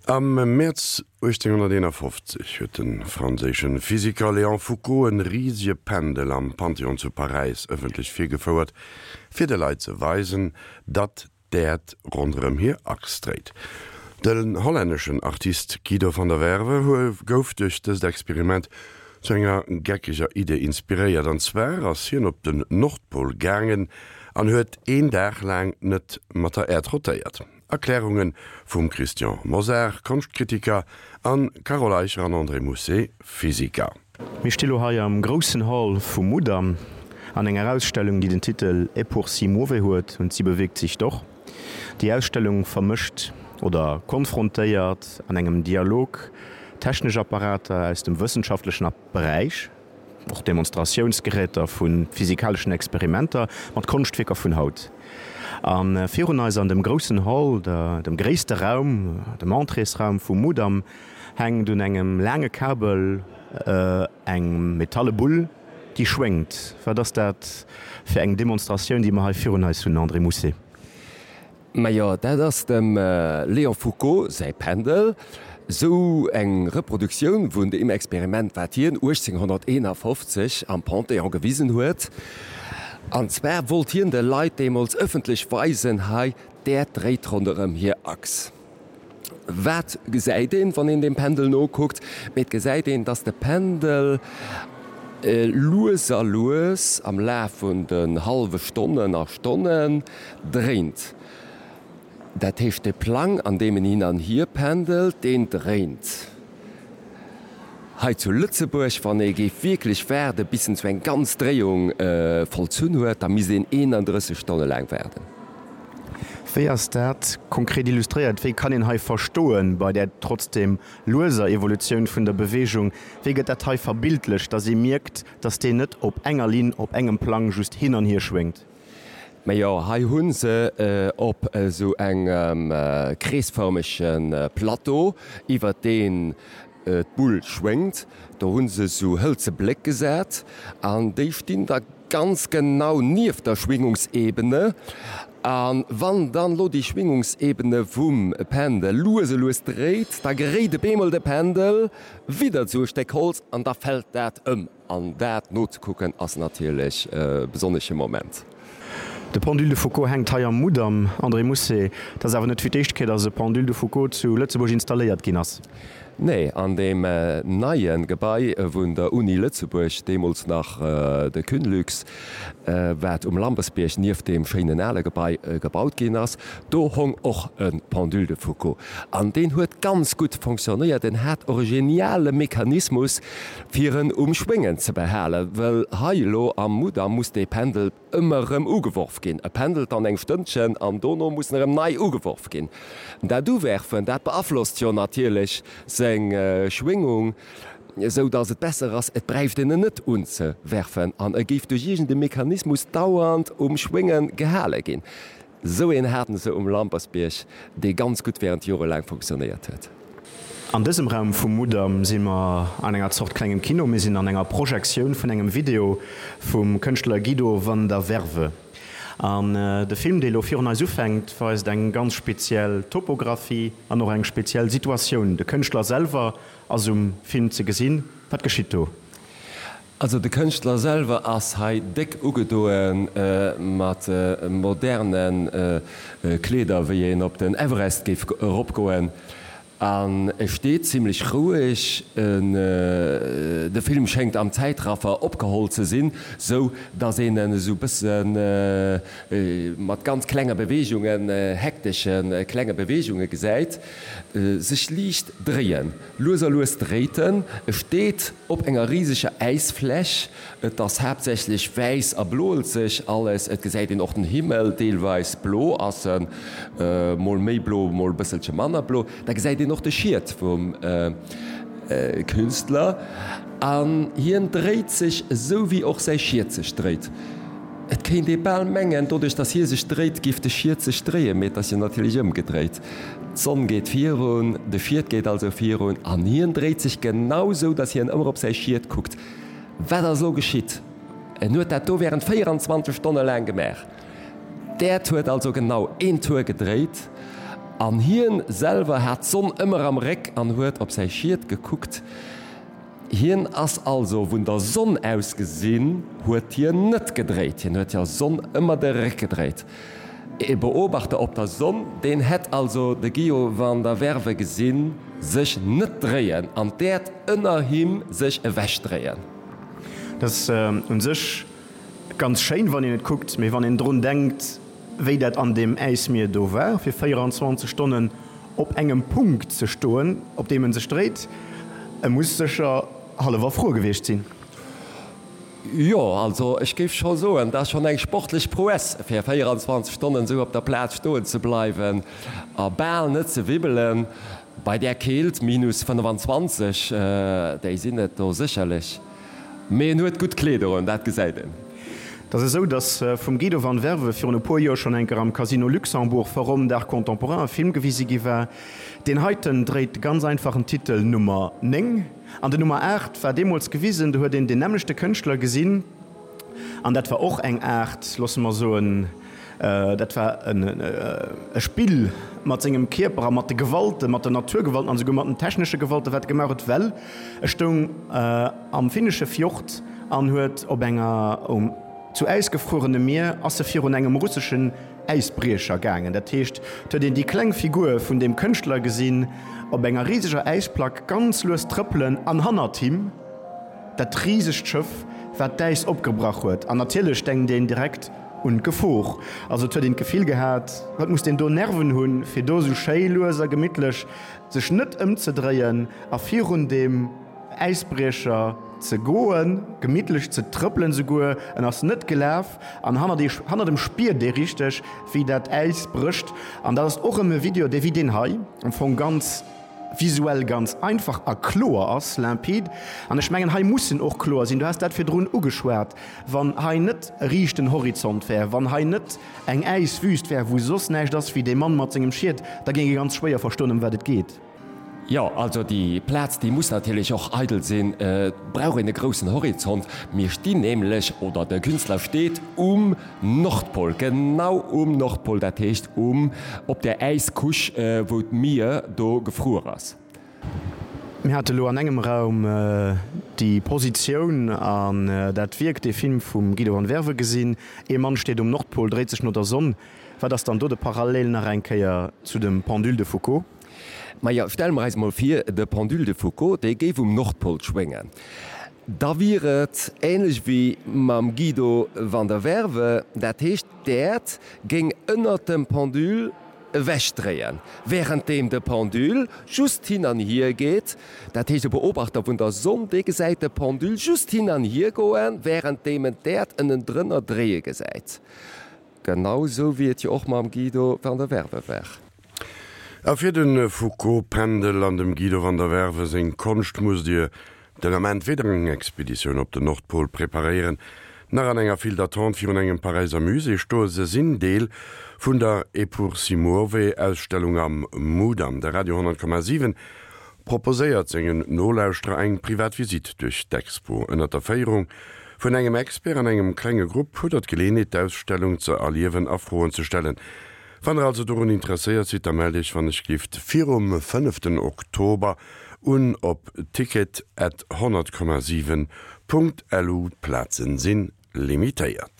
Am Mäerz 1851 huet de franséische Physiker Léon Foucault e risege Pendel am Panthéon zu Paräis ëffentlech virgefouert, fir de Leit ze weisen, datt d'Äerd ronderëm hir Achs dréit. Den hollänneschen Artist Guido van der Werve gouf duerch dëst Experiment zu enger geckeger Idee inspiréiert, an zwar ass hien op den Nordpol gaangen an huet een Dag laang net mat der Äerd rotéiert. Erklärunge vum Christian Mosar, Konschtkritiker, an Carole Eicher an André Mousset, Physiker. Mir sti lo hei am groussen Hall vum Mudam an enger Ausstellung, déi den Titel Et pour si muove huet und sie bewegt sich doch. Déi Ausstellung vermëscht oder konfrontéiert an engem Dialog technesch Apparater aus dem wëssenschaftlechen Beräich, och Demonstratiounsgeräter vu physikaleschen Experimenter, mat Konschtwierker vun haut. A virun eis an dem groussen Hall, dem gréisste Raum, dem Entréesraum vum Mudam, hänkt un engem laange Kabel eng metalle Bull, déi schwéngt. Wat ass dat fir eng Demonstratioun, déi mer hei virun eis hunn, André Mousset? Majo, dat ass dem Léon Foucault säi Pendel. Sou eng Reproduktioun vun deem Experiment, wat hien 1851 am Panthéon gewisen huet. An zwar wollt hien de Leit deemools ëffentlech weisen, hei, d'Äerd dréit ronderëm hir Achs. Wat gesäit een, wann een dem Pendel nokuckt? Mee et gesäit een, dass de Pendel lues a lues am Laf vun den hallwe Stonnen a Stonnen dréint. Dat heescht, de Plang, an deem en hin an hier pendelt, deen dréint. Hei zu Lëtzebuerg, wann ee géif wierklech waarde bis en sou eng ganz Dréiung vollzunn huet, da misst een 31 Stonne laang waarden. Wéi ass dat konkret illustréiert? Wéi kann een hei verstoen, bei där trotzdem lueser Evolutioun vun der Beweegung, wéi gëtt dat hei verbildlecht, datt ee mierkt, datt deen net op enger Linn, op engem Plang just hin an hier schwéngt? Majo, hei hu se op esou engem kreesfërmege Plateau, iwwer deen d'Bull schwéngt, do hu se esou hëlze Bléck gesat an déi stinn da ganz genau nieft der Schwingungsebene. A wann dann elo déi Schwingungsebene vum Pendel lues e lues dréit, da geréit op eemol de Pendel widder esou e Stéck Holz an da fält dat ëm. An dat nozekucken ass natierlech e besonnesche Moment. De Pendule de Foucault hänkt hei am Mudam. André Mousset, Et ass awer net fir d'éischt Kéier, datt e Pendule de Foucault zu Lëtzebuerg installéiert ginn ass. Nee, an deem neie Gebai vun der Uni Lëtzebuerg, deemools nach de Cunlux, wat um Lampersbierg nieft deem schéinen ale Gebai gebaut ginn ass, do hong och e Pendule de Foucault. An deen huet ganz gutt fonctionnéiert. En hat och e geniale Mechanismus, fir en um Schwéngen ze behalen, well hei elo am Mudam muss dee Pendel ëmmer erëm ugeworf ginn. E pendelt dann eng Stënnchen an dono muss en erëm nei ugeworf ginn. Dat Uwerfen, dat beaflosst jo natierlech seng Schwingung, esou datt et besser ass, et bräicht een en net unzewerfen an e géif duerch iergend e Mechanismus dauernd um Schwénge gehale ginn. Esou een haten se um Lampersbierg, dee ganz gutt während Jore laang funktionéiert huet. An dësem Raum vum Mudam si mer an enger Zort klengem Kino. Mir sinn an enger Projektioun vun engem Video vum Kënschtler Guido van der Werve. An de Film, dee lo virun eis ufänkt, weist eng ganz speziell Topographie an och eng speziell Situatioun. De Kënschtler selwer ass um Film ze gesinn. Wat geschitt do? Also de Kënschtler selwer ass hei déck ugedoe mat moderne Kleeder, wéi een op den Everest géif eropgoen, an e steet zimlech roueg. De Film schéngt am Zäitraffer opgeholl ze sinn, sou datt een en esou bësse mat ganz klenge Beweegungen, hektesche klenge Beweegunge gesäit, sech liicht dréien. Lues a lues dréit en. E steet op enger riseger Äisfläch. Et ass haaptsächlech wäiss a bloelzeg alles. Et gesäit een och den Himmel, deelweis blo ass en, mol méi blo, mol e bësselche manner blo. Da gesäit een och de Schiet vum Künstler an hien dréit sech esou wéi och säi Schiet sech dréit. Et kéint ee bal mengen, doduerch datt hie sech dréit, géif de Schiet sech dréien, mee et ass jo natierlech ëmgedréit. D'Sonn geet virun, de Schiet geet also virun an hien dréit sech genau sou, datt hien ëmmer op säi Schiet kuckt. Wat ass elo geschitt? En huet dat do während 24 Stonne laang gemaach. D'Äerd huet also genau een Tour gedréit an hien selwer hat d'Sonn ëmmer am Réck an huet op säi Schiet gekuckt. Hien ass also vun der Sonn aus gesinn huet hien net gedréit, hien huet der Sonn ëmmer de Réck gedréit. E Beobachter op der Sonn, deen hätt also de Guido van der Werve gesinn sech net dréien an d'Äerd ënner him sech ewech dréien. Dat ass un sech ganz schéin wann een et kuckt, mee wann een drun denkt wéi dat an deem Äismier do war fir 24 Stonnen op engem Punkt ze stoen op deem en sech dréit, e muss sécher hallef erfruer gewiescht sinn. Jo, also ech géif scho soen, dat ass schonn eng sportlech Prouesse, fir 24 Stonnen esou op der Plaz stoen ze bleiwen a bal net ze wibbelen bei där Keelt, minus 25, déi sinn et do sécherlech. Mee en huet gutt Kleeder un, dat gesäit een. Et ass esou, datt vum Guido van Werve virun e puer Joer schonn eng Kéier am Casino Luxembourg Forum d'Art Contemporain e Film gewise gi war. Deen heiten dréit de ganz einfachen Titel Nummer 9. An den Nummer 8 war deemools gewisen, do huet een deen nämmlechte Kënschtler gesinn an dat war och eng Aart, loosse mer soen, dat war e Spill mat sengem Kierper a mat de Gewalten, mat den Naturgewalten an esouguer mat den technesche Gewalten, wat e gemaach huet, well e stoung am finnesche Fjord an huet op enger um zu Äis gefruerene Mier ass e virun engem russeschen Äisbriecher gaangen. Dat heescht, et huet een déi kleng Figur vun deem Kënschtler gesinn op enger riseger Äisplack ganz lues trëppelen an hannert him dat risegt Schëff, wat d'Äis opgebrach huet. An natierlech denkt een direkt un d'Gefor. Also et huet een d'Gefill gehat, wat muss deen do Nerven hunn, fir do esou schéi lues a gemittlech sech net ëmzedréien a virun deem Äisbriecher ze goen, gemittlech ze trëppelen souguer, en ass net gelaf an hannert ee, hannert em spiert ee richteg wéi dat Äis brécht an dat ass och erëm e Video dee wéi deen hei am Fong ganz visuell ganz einfach a kloer ass, limpide an ech mengen hei muss en och kloer sinn, du has dat virdrun ugeschwat, wann hei net e riichten Horizont wär, wann hei net eng Äiswüst wär wou soss näischt ass wéi dee Mann mat sengem Schiet, da géing ee ganz schwéier verstoen ëm wat et geet. Jo, also déi Plaz, déi muss natierlech och eidel sinn. Et brauch een e groussen Horizont. Mir stinn nämlech, oder de Künstler steet um Nordpol, genau um Nordpol, dat heescht um, op der Äiscouche, wou d'Mier do gefruer ass. Mir hate lo an engem Raum déi Positioun an dat Wierk, dee Film vum Guido van Werve gesinn. Ee Mann steet um Nordpol, dréit sech no der Sonn. Wat ass dann do de Parallel nach eng Kéier zu dem Pendule de Foucault? Majo, stelle mer eis mol vir, de Pendule de Foucault, dee géif um Nordpol schwéngen. Da wier et ähnlech wéi mam Guido van der Werve, dat heescht, d'Äerd géing ënnert dem Pendule ewechdréien, wärenddeem de Pendule just hin an hier geet. Dat heescht, e Beobachter vun der Sonn, dee gesäit de Pendule just hin an hier goen, wärenddeem en d'Äerd ënnendrënner dréie gesäit. Genau sou wéi et jo och mam Guido van der Werve war. A fir de Foucault-Pendel an dem Guido van der Werve seng Konscht musst Dir den Ament weder eng Expeditioun op den Nordpol preparéieren, nach an enger File d'attente virun engem Paräiser Musée stoen. Se sinn Deel vun der Eppur si muove-Ausstellung am Mudam. De Radio 10,7 proposéiert sengen Nolauschterer eng privat Visitt duerch d'Expo. Ënnert der Féierung vun engem Expert an engem klenge Grupp hutt der d'Geleeënheet d'Ausstellung ze erliewen a Froen ze stellen. Wann der also dorun interesséiert sidd, da mellt iech wann ech gift virum fënneften Oktober un op ticket at 100,7 Punkt lu. D'Plazen sinn limitéiert.